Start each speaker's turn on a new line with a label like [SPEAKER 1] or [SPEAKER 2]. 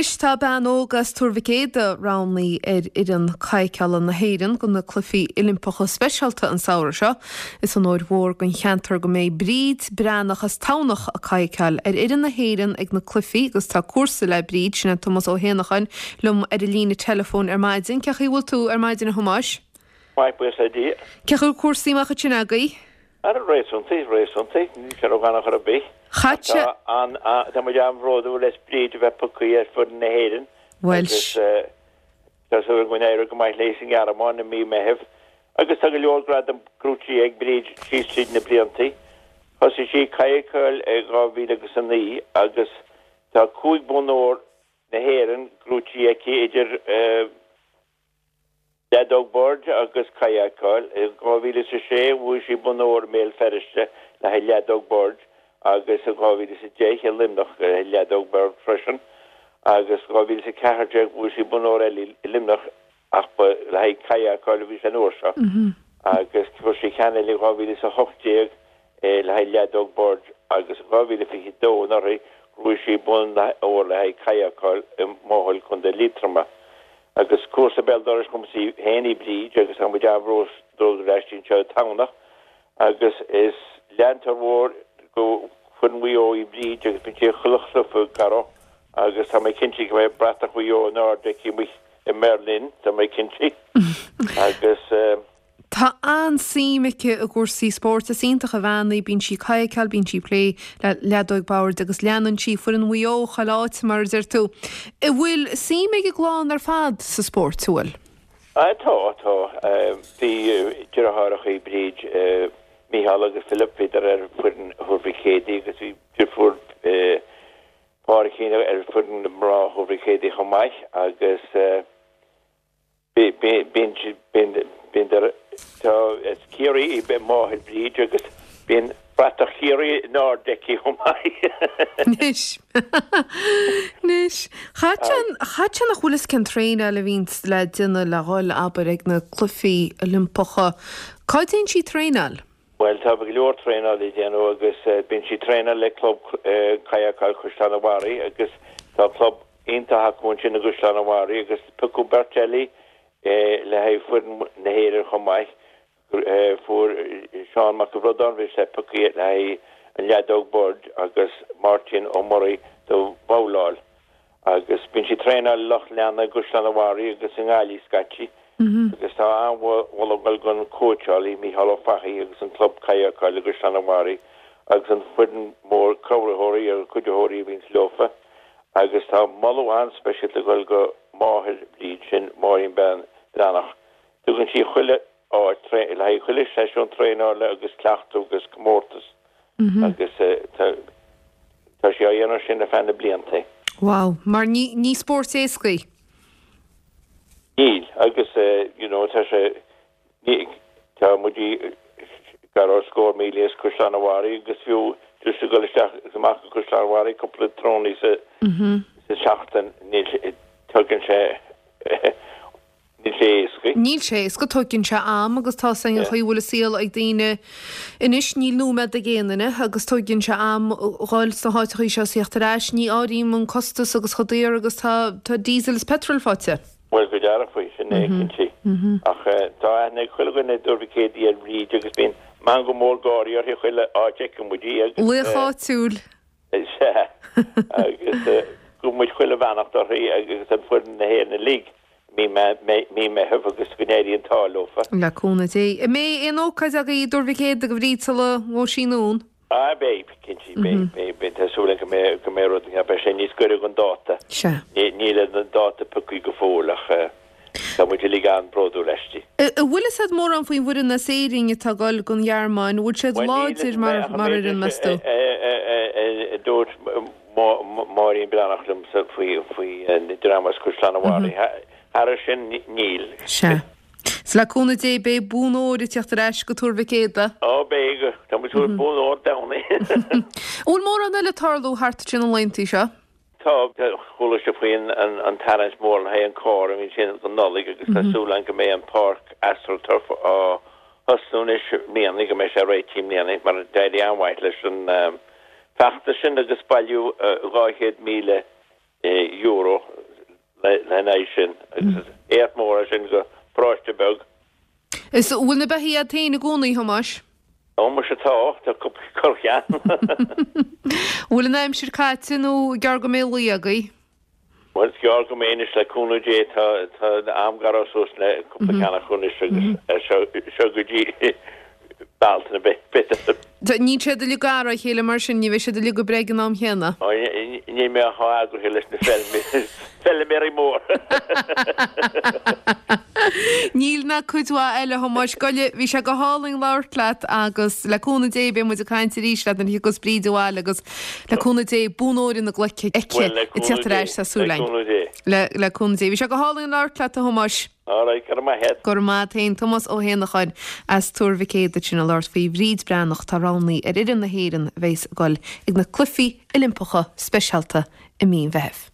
[SPEAKER 1] Anois tá bean óg as Tuar Mhic Éadaigh roghnaithe ar fhoireann cadhcála na hÉireann do na Cluichí Oilimpeacha Speisialta an samhradh seo. Is onóir mhór don cheantar go mbeidh Bríd Breathnach as Tamhnach ag cadhcáil ar fhoireann na hÉireann ag na cluichí agus tá comharsa le Bríd, sin é Tomás Ó hÉanacháin, liom ar an líne teileafóin ar maidin. Cén chaoi a bhfuil tú ar maidin a Thomáis?
[SPEAKER 2] Maith, buíochas le Dia.
[SPEAKER 1] Cén chaoi a bhfuil cúrsaí amach ansin agaibh?
[SPEAKER 2] Ara, réasúnta, réasúnta, níl sé ródhona chor ar bith.
[SPEAKER 1] Ach
[SPEAKER 2] tá an, tá muid an-bhródúil as Bríd a bheith pioctha ar foireann na hÉireann agus tá súil againn go n-éireoidh go maith léi sa nGearmáin i mí Meithimh. Agus tá go leor gradam gnóthaithe ag Bríd síos tríd na blianta. Thosaigh sí ag cadhcáil i 2009 agus tá 5 bonn óir na hÉireann gnóthaithe aici idir Leadóg boird agus cadhcáil. I 2006 bhuaigh sí bonn óir i mBéal Feirste le haghaidh leadóg boird agus i 2010 i Luimneach le haghaidh leadóg boird freisin agus 2014 bhuaigh sí bonn óir eile i Luimneach ach ba le haghaidh cadhcáil a bhí sé an uair seo agus fuair sí ceann eile i 2018 le haghaidh leadóg boird agus i 2022 anuraidh ghnóthaigh sí bonn óir le haghaidh cadhcáil i Maothail, Co. Liatroma. Agus comharsa béal dorais dhomsa féin í Bríd agus tá muid an-bhródúil aisti anseo i dTamhnach agus is leantóir mhór go foireann Mhaigh Eo í Bríd agus bíonn sí ag chuile chluiche Gareth agus tá mé cinnte go mbeidh bratach Mhaigh Eo in airde aici amuigh i mBerlin, tá mé cinnte agus.
[SPEAKER 1] Tá an-suim aici i gcúrsaí spóirt. Is iontach an bhean í. Bíonn sí ag cadhcáil, bíonn sí ag plé le leadóig boird agus leanann sí foireann Mhaigh Eo chuile áit, mar a deir tú. An bhfuil suim ag an gclann ar fad sa spórt, an bhfuil?
[SPEAKER 2] Tá, tá. Bhí deartháireacha Bríd, Mícheál agus Philip, bhíodar ar foireann Thuar Mhic Éadaigh agus bhí deirfiúr Pádraigín ar foireann mná Thuar Mhic Éadaigh chomh maith agus, Bíonn, bíonn, tá, as Ciarraí í máthair Bríd agus bíonn bratach Chiarraí in airde aici chomh maith.
[SPEAKER 1] Anois, anois, chaithfeadh sé, chaithfeadh sé nach bhfuil fhios cén traenáil a bhíonns le déanamh le dhul, abair, ag na Cluichí Oilimpeacha. Cá dtéann sí ag traenáil?
[SPEAKER 2] Bhuel, tá go leor traenáil le déanamh agus bíonn sí ag traenáil le club cadhcáil Chaisleán an Bharraigh agus tá club iontach acu ansin i gCaisleán an Bharraigh agus piocadh beirt eile le haghaidh foireann na hÉireann chomh maith. Fuair Seán Mac an Bhraodáin, bhí sé pioctha le haghaidh an leadóg boird agus Máirtín Ó Muirí do bhabhláil. Agus bíonn sí ag traenáil i Loch Leanna i gCaisleán an Bharraigh agus i nGaillimh scaití. Agus tá an-mholadh ag dul don chóitseálaí, Mícheál Ó Fathaigh agus an club cadhcáil i gCaisleán an Bharraigh agus an foireann mór cabhraitheoirí agus cuiditheoirí a bhíonns leofa. Agus tá moladh an-speisialta ag dul go máthair Bhríd, sin Máirín Bean Breathnach. Tugann sí chuile áit le haghaidh chuile seisiún traenála agus cleachtadh agus comórtas agus tá sí á dhéanamh sin ar feadh na blianta.
[SPEAKER 1] Wow, mar ní ní spórt éasca í.
[SPEAKER 2] Níl, agus you know tá sé, ní, tá muid gar do scór míle as Caisleán an Bharraigh agus fiú just ag dul isteach agus amach go Caisleán an Bharraigh cúpla tráthnóna sa sa seachtain níl, tugann sé Níl sé éasca.
[SPEAKER 1] Níl sé éasca, tóigeann sé am agus tá 's againn an chaoi a bhfuil an saol ag daoine anois, níl nóiméad ag aon duine agus tóigeann sé am dhul sna háiteachaí seo is theacht ar ais, ní áirím an costas agus chomh daor agus tá tá diesel is petrol faighte.
[SPEAKER 2] Bhuel, go dearfa faoi, sin é, cinnte. Ach tá aithne ag chuile dhuine i dTuar Mhic Éadaigh ar Bhríd agus bíonn meangadh mór gáirí uirthi chuile áit a fheiceann muid í agus.
[SPEAKER 1] Laoch áitiúil.
[SPEAKER 2] Sea, agus gabhann muid chuile bheannacht uirthi agus ar foireann na hÉireann uilig i mí Meitheamh agus go n-éirí an t-ádh leofa.
[SPEAKER 1] Le cúnamh Dé. An mbeidh aon ócáid agaibh i dTuar Mhic Éadaigh do Bhríd sula ngabhfaidh sí anonn?
[SPEAKER 2] Ah, beidh, cinnte, beidh, beidh, beidh, tá súil agam go mbeidh, go mbeidh rud, beidh sé níos gaire don dáta.
[SPEAKER 1] Sea.
[SPEAKER 2] Níl an dáta pioctha go fóill ach. Tá muid uilig an-bhródúil aisti.
[SPEAKER 1] An bhfuil fhios a'd mórán faoin bhfoireann as Éirinn atá ag dul don Ghearmáin? An bhfuil siad láidir mar fhoireann, meas tú?
[SPEAKER 2] Dúirt Máirín Breathnach liomsa faoi an dream as Caisleán an Bharraigh. Thairis sin, níl.
[SPEAKER 1] Sea. 'S le cúnamh Dé beidh bonn óir ag teacht ar ais go Tuar Mhic Éadaigh.
[SPEAKER 2] Ó beidh. Tá muid ag súil le bonn óir domhanda.
[SPEAKER 1] An bhfuil mórán eile ag tarlú thart ansin na laethanta seo?
[SPEAKER 2] Tá, chuala sibh faoi an tarraingt mór le haghaidh an carr a bhíonn sin don Nollaig agus tá súil againn go mbeidh an páirc AstroTurf á thosnú anois i mbliana, go mbeidh sé réitithe i mbliana mar d'éirigh an-mhaith leis an feachtas sin agus bailíodh 200,000. Euro lena aghaidh sin agus is éacht mór é sin go paróiste beag.
[SPEAKER 1] Is bhfuil na beithígh agat féin i gcónaí, a Thomáis?
[SPEAKER 2] Ó muise tá, tá cúpla corrcheann.
[SPEAKER 1] Bhfuil an aimsir caite nó gearr go mbeidh lao agaibh?
[SPEAKER 2] Bhuel is gearr go mbeidh anois le cúnamh Dé, tá am ag gearradh suas le cúpla ceann acu anois agus seo go dtí Bealtaine b'fhéidir.
[SPEAKER 1] Níl siad uilig gar dá chéile mar sin, ní bheidh siad uilig ag breith ag an am chéanna.
[SPEAKER 2] Níl mé chomh eagraithe leis na feilméaraí móra.
[SPEAKER 1] Níl ná cuid mhaith eile, a Thomáis. Gabh i leith, bhí sé go hálainn labhairt leat agus le cúnamh Dé beidh muid ag caint arís leat nuair a thiocfas Bríd abhaile agus le cúnamh Dé bonn óir ina glaic aici ag tíocht ar ais, tá súil againn. Le cúnamh Dé. Bhí sé go hálainn labhairt leat, a Thomáis.
[SPEAKER 2] All right, go raibh maith a't.
[SPEAKER 1] Go raibh maith a't féin. Tomás Ó hÉanacháin as Tuar Mhic Éadaigh ansin ag labhairt faoi Bhríd Breathnach atá roghnaithe ar fhoireann na hÉireann a bheas ag dul ag na Cluichí Oilimpeacha Speisialta i mí an Mheithimh.